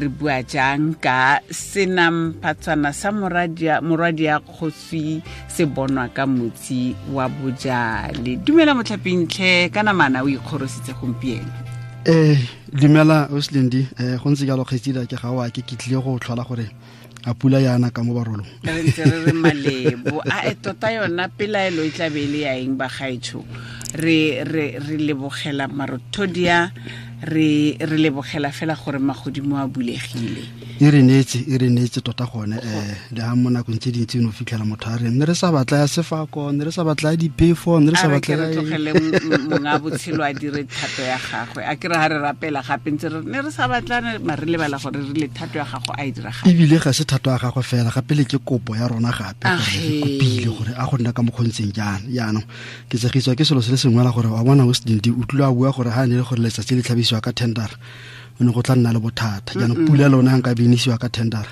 Re bua jang ka senamphatswana sa morwadia kgosi se bonwa ka motsi wa bojale. Dumela motlhapintlhe, ka namana o ikgorositse gompieno. Dumela Oslindi, go ntse jalo kgetsida ke ga wa ke tlile go tlhola gore a pula yana ka mo barolong. Re ntse re re malebo. A e tota yona pelaelo e tla be e le ya eng bagaetsho? Re lebogela marothodia, re lebogela fela gore magodimo a bulegile. E re neetse tota gone, le ha mo nakong tse dintsi no fitlhela motho a re ne re sa batla ya sefako, ne re sa batla ya diphefo, ne re sa batla ya tlogele monga botshelo a dire thato ya gagwe. A ke re ha re rapela gape ntse re ne re sa batla mare re lebala gore re le thato ya gago a e dira gape. Ebile ga se thato ya gagwe fela, gape le ke kopo ya rona gape gore re kopile gore a go nna ka mokgontseng jaana. Jaanong ke tsegiswa ke selo se le sengwe la gore wa bona o Sedindi o tlile a bua gore ha ne le gore letsatsi le tlhabisiwa ka tendera o ne go tla nna le bothata. Jaanong pula lona nka binisiwa ka tendera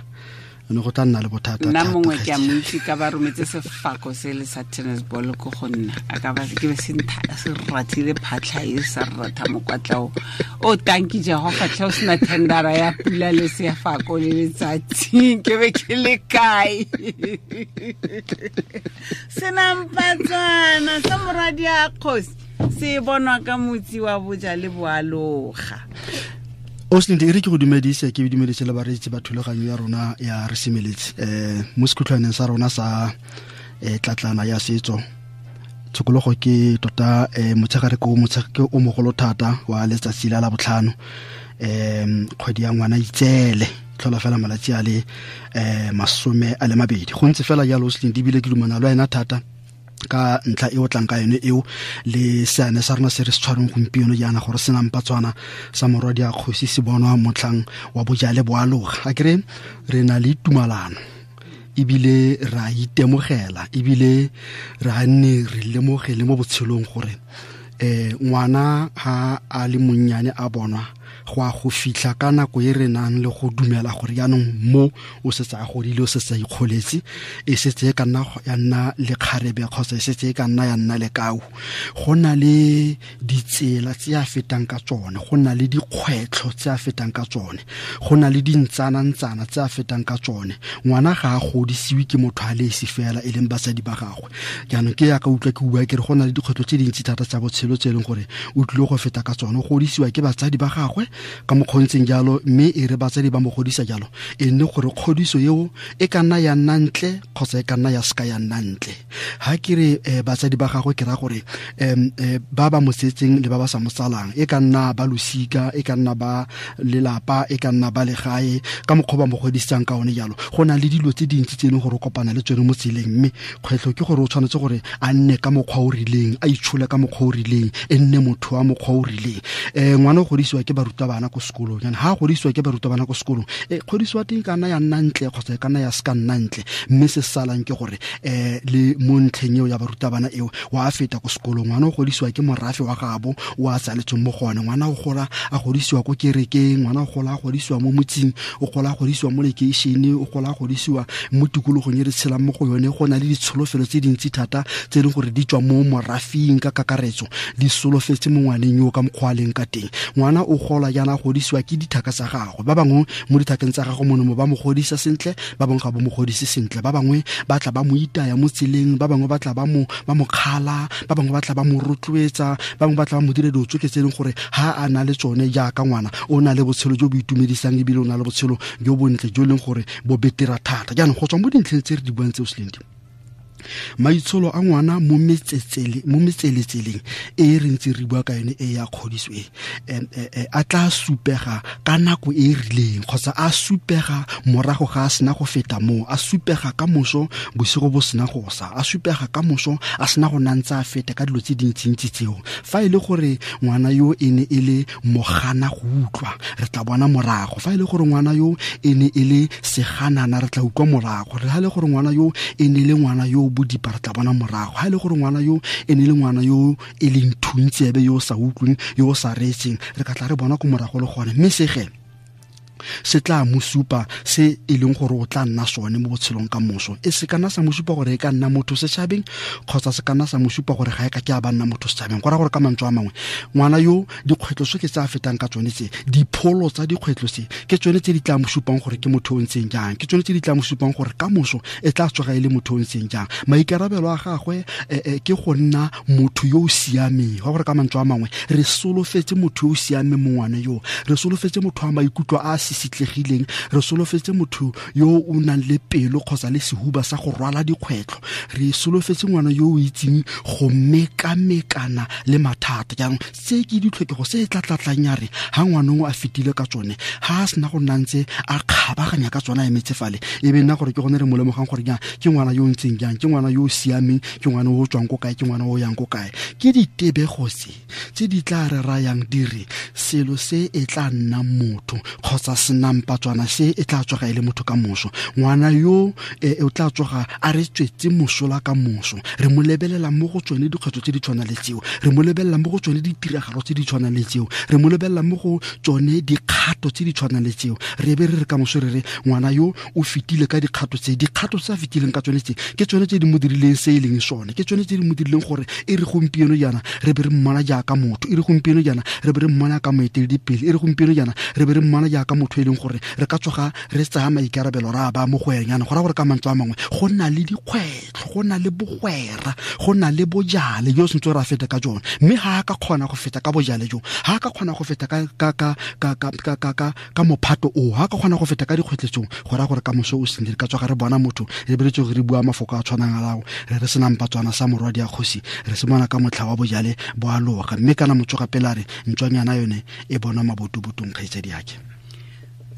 o ne go tla nna le bothata. Nna mongwe ke a mo itse ka ba rometse sefako se le sa tennis ball ko go nna, a ka ba ke be se se rathile phatlha e sa ratha mokwatlao o tanki Jehova tlhe o sena tendera ya pula le sefako le letsatsi ke be ke le kae. Senampatswana sa morwadia kgosi se bonwa ka motsi wa bojale boaloga. Oslindi, e re ke go dumedise, ke dumedise le bareetsi ba thulaganyo ya rona ya re semeletse mo sekhutlhwaneng sa rona sa tlatlana ya setso. Tshokologo ke tota motshegare ke o mogolo thata wa letsatsi la botlhano, kgwedi ya ngwana itsele tlhola fela malatsi a le 22. Go ntse fela jalo Oslindi, ebile ke dumana le wena thata ka ntlha e o tlang ka yone eo le seane sa rona se re se tshwareng gompieno jaana gore senampatswana sa morwadia kgosi se bonwa motlhang wa bojale boaloga. A kere re na le tumalano ebile ra itemogela ebile ra nne re lemogele mo botshelong gore ngwana ha a le monnyane a bonwa go a go fitlha ka nako e re nang le go dumela gore jaanong mo o setse a godile, o setse a ikgoletse, e setse e ka nna ya nna lekgarebe kgotsa e setse e ka nna ya nna lekau. Go na le ditsela tse a fetang ka tsone, go na le dikgwetlho tse a fetang ka tsone, go na le dintsanantsana tse a fetang ka tsone. Ngwana ga a godisiwe ke motho a le esi fela e leng basadi ba gagwe. Jaanong ke yaka utlwa ke bua ke re go na le dikgwetlho tse dintsi thata tsa botshelo tse e leng gore o tlile go feta ka tsone. O godisiwa ke batsadi ba gagwe ka mokgontseng jalo, mme e re batsadi ba mo godisa jalo e nne gore kgodiso eo e ka nna ya nna ntle kgotsa e ka nna ya seka ya nna ntle. Ha ke re batsadi ba gagwe ke ra gore ba ba mo tsetseng le ba ba sa mo tsalang, e ka nna ba losika, e ka nna ba lelapa, e ka nna ba legae, ka mokgwa ba mo godisang ka one jalo. Go na le dilo tse dintsi tse e leng gore o kopana le tsone mo tseleng, mme kgwetlho ke gore o tshwanetse gore a nne ka mokgwa o rileng, a itshole ka mokgwa o rileng, e nne motho wa mokgwa o rileng. Ngwana o godisiwa ke barutabana ko sekolong, jaanong ha a godisiwa ke barutabana ko sekolong, kgodiso wa teng e ka nna ya nna ntle kgotsa e ka nna ya se ka nna ntle, mme se salang ke gore le mo ntlheng eo ya barutabana eo wa feta ko sekolong. Ngwana o godisiwa ke morafe wa gabo o a tsaletsweng mo go one, ngwana o gola a godisiwa ko kerekeng, ngwana o gola a godisiwa mo motseng, o gola a godisiwa mo lekeišene, o gola a godisiwa mo tikologong e re tshelang mo go yone. Go na le ditsholofelo tse dintsi thata tse e leng gore di tswa mo morafing ka kakaretso, di solofetse mo ngwaneng yo ka mokgwa a leng ka teng. Ngwana o gola jaana a godisiwa ke dithaka tsa gagwe, ba bangwe mo dithakeng tsa gagwe mono mo ba mo godisa sentle, ba bangwe ga ba mo godise sentle, ba bangwe ba tla ba mo itaya mo tseleng, ba bangwe ba tla ba mo kgala, ba bangwe ba tla ba mo rotloetsa, ba bangwe ba tla ba mo dire dilo tsotlhe tse e leng gore ha a na le tsone jaaka ngwana o na le botshelo jo bo itumedisang ebile o na le botshelo jo bontle jo e leng gore bo betera thata. Jaanong go tswa mo dintlheng tse re di buang tseo Selindi, maitsholo a ngwana mo metseletseleng e re ntse re bua ka yone e ya kgodiso e a tla supega ka nako e rileng kgotsa a supega morago ga a sena go feta moo, a supega ka moso bosigo bo sena go sa, a supega ka moso a sena go nantsa a feta ka dilo tse dintsintsi tseo. Fa e le gore ngwana yo e ne e le mogana go utlwa, re tla bona morago. Fa e le gore ngwana yo e ne e le seganana, re tla utlwa morago. Re ha e le gore ngwana yo e ne e le ngwana yo bodipa, re tla bona morago. Ha e le gore ngwana yo e ne e le ngwana yo e leng thuntsebe, yo o sa utlweng, yo o sa reetseng, re ka tla re bona ko morago le gone. Mme sege Se tla mo supa se e leng gore o tla nna sone mo botshelong ka moso. E se kana sa mo supa gore e ka nna motho setšhabeng, kgotsa se kana sa mo supa gore ga e ka ke a ba nna motho setšhabeng. Go raya gore ka mantswe a mangwe, ngwana yo dikgwetlho tsotlhe tse a fetang ka tsone tse, dipholo tsa dikgwetlho tse, ke tsone tse di tla mo supang gore ke motho o ntseng jang, ke tsone tse di tla mo supang gore ka moso e tla tsoga e le motho o ntseng jang. Maikarabelo a gagwe ke go nna motho yo o siameng. Go gore ka mantswe a mangwe, re solofetse motho yo o siameng mo ngwana yo, re solofetse motho wa maikutlo a a sisitlegileng, re solofetse motho yo o nang le pelo kgotsa le sehuba sa go rwala dikgwetlho, re solofetse ngwana yo o itseng go mekamekana le mathata. Jaanong se ke ditlhokego se e tla tlatlang ya re ha ngwanong a fetile ka tsone, ha a sena go nna ntse a kgabaganya ka tsone a emetse fale, e be nna gore ke gone re mo lemogang gore jang ke ngwana yo o ntseng jang, ke ngwana yo o siameng, ke ngwana o tswang ko kae, ke ngwana o yang ko kae. Ke ditebego tse tse di tla re rayang di re selo se e tla nna motho kgotsa senampatswana se e tla tsoga e le motho ka moso. Ngwana yo o tla tsoga a re tswetse mosola ka moso. Re mo lebelela mo go tsone dikgwetlho tse di tshwanang le tseo, re mo lebelela mo go tsone ditiragalo tse di tshwanang le tseo, re mo lebelela mo go tsone dikgato tse di tshwanang le tseo. Re be re re ka moso re re ngwana yo o fetile ka dikgato tse, dikgato tse a fetileng ka tsone tse ke tsone tse di mo dirileng se e leng sone, ke tsone tse di mo dirileng gore e re gompieno jaana re be re mmona jaaka motho, e re gompieno jaana re be re mmona ka moeteledipele, e re gompieno jaana re be re mmona jaaka motho e leng gore re ka tsoga re tsaya maikarabelo ra ba mo go ene. Go raya gore ka mantswe a mangwe go na le dikgwetlho, go na le bogwera, go na le bojale jo sentse re a feta ka jone. Mme ga a ka kgona go feta ka bojale jo, ga a ka kgona go feta ka mophato o, ga a ka kgona go feta ka dikgwetlho tseo, go raya gore ka moso o sentle re ka tsoga re bona motho, re be re tsoge re bua mafoko a tshwanang a lao, re re senampatswana sa morwadi a kgosi, re se bona ka motlha wa bojale bo a loga. Mme kana motsoga pele a re ntswanyana yone e bonwa mabotobotong, kgaitsadi yake.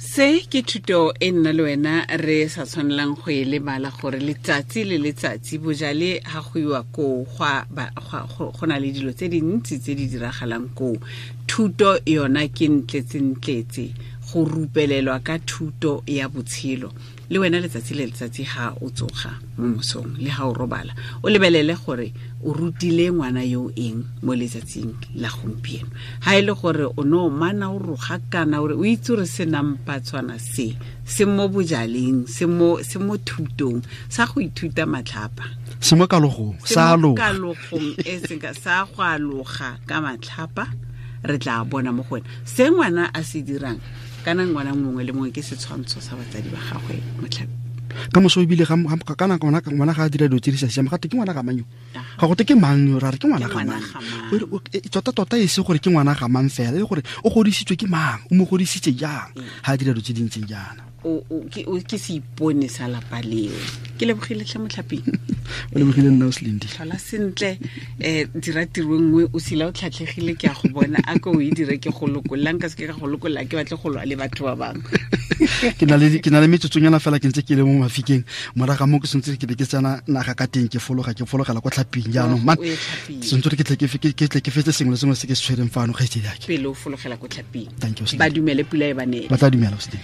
Se ke thuto e nna le wena re sa tshwanelang go e lebala, gore letsatsi le letsatsi bojale ha go iwa koo go na le dilo tse dintsi tse di diragalang koo. Thuto yona ke ntletsentletse, go rupelelwa ka thuto ya botshelo. Le wena letsatsi le letsatsi ha o tsoga mo mosong le ha o robala, o lebelele gore o rutile ngwana yo eng mo letsatsing la gompieno. Ha e le gore o no mana o roga kana o re o itse gore senampatswana se se mo bojaleng, se mo thutong sa go ithuta matlhapa, se mo kalogong, sa aloga. Kalogong e seng sa go aloga ka matlhapa, re tla bona mo go wena se ngwana a se dirang. Kana ngwana mongwe le mongwe ke setshwantsho sa batsadi ba gagwe motlhapi. Ka moso ebile ka nako ngwana ga a dira dilo tse di sa siamang, gate ke ngwana ga mang yo? Ga gote ke mang yo? Ra re ke ngwana ga mang? Tota-tota e se gore ke ngwana ga mang fela, e le gore o godisitswe ke mang, o mo godisitse jang, ga a dira dilo tse di ntseng jaana. Ke seipone sa lapa leo. Ke lebogile tlhe motlhaping. O lebogile nna o Selindi. Tlhola sentle, dira tiro nngwe, o sila o tlhatlhegile, ke a go bona, a ko o e dire ke go lokolla, nka seke ka go lokolla, ke batle go lwa le batho ba bangwe. Ke na le metsotsonyana fela ke ntse ke le mo mafikeng, morago ga moo ke santse ke be ke tsena naga ka teng, ke fologela kwa tlhaping jaanong. Man, O ye tlhaping. santse ke tle ke tle ke fetse sengwe le sengwe se ke se tshwereng fano, kgaitsedi yake. Pele o fologela kwa tlhaping. Thank you, Selindi. Ba dumele pula e ba neele. Ba tla dumela, Selindi.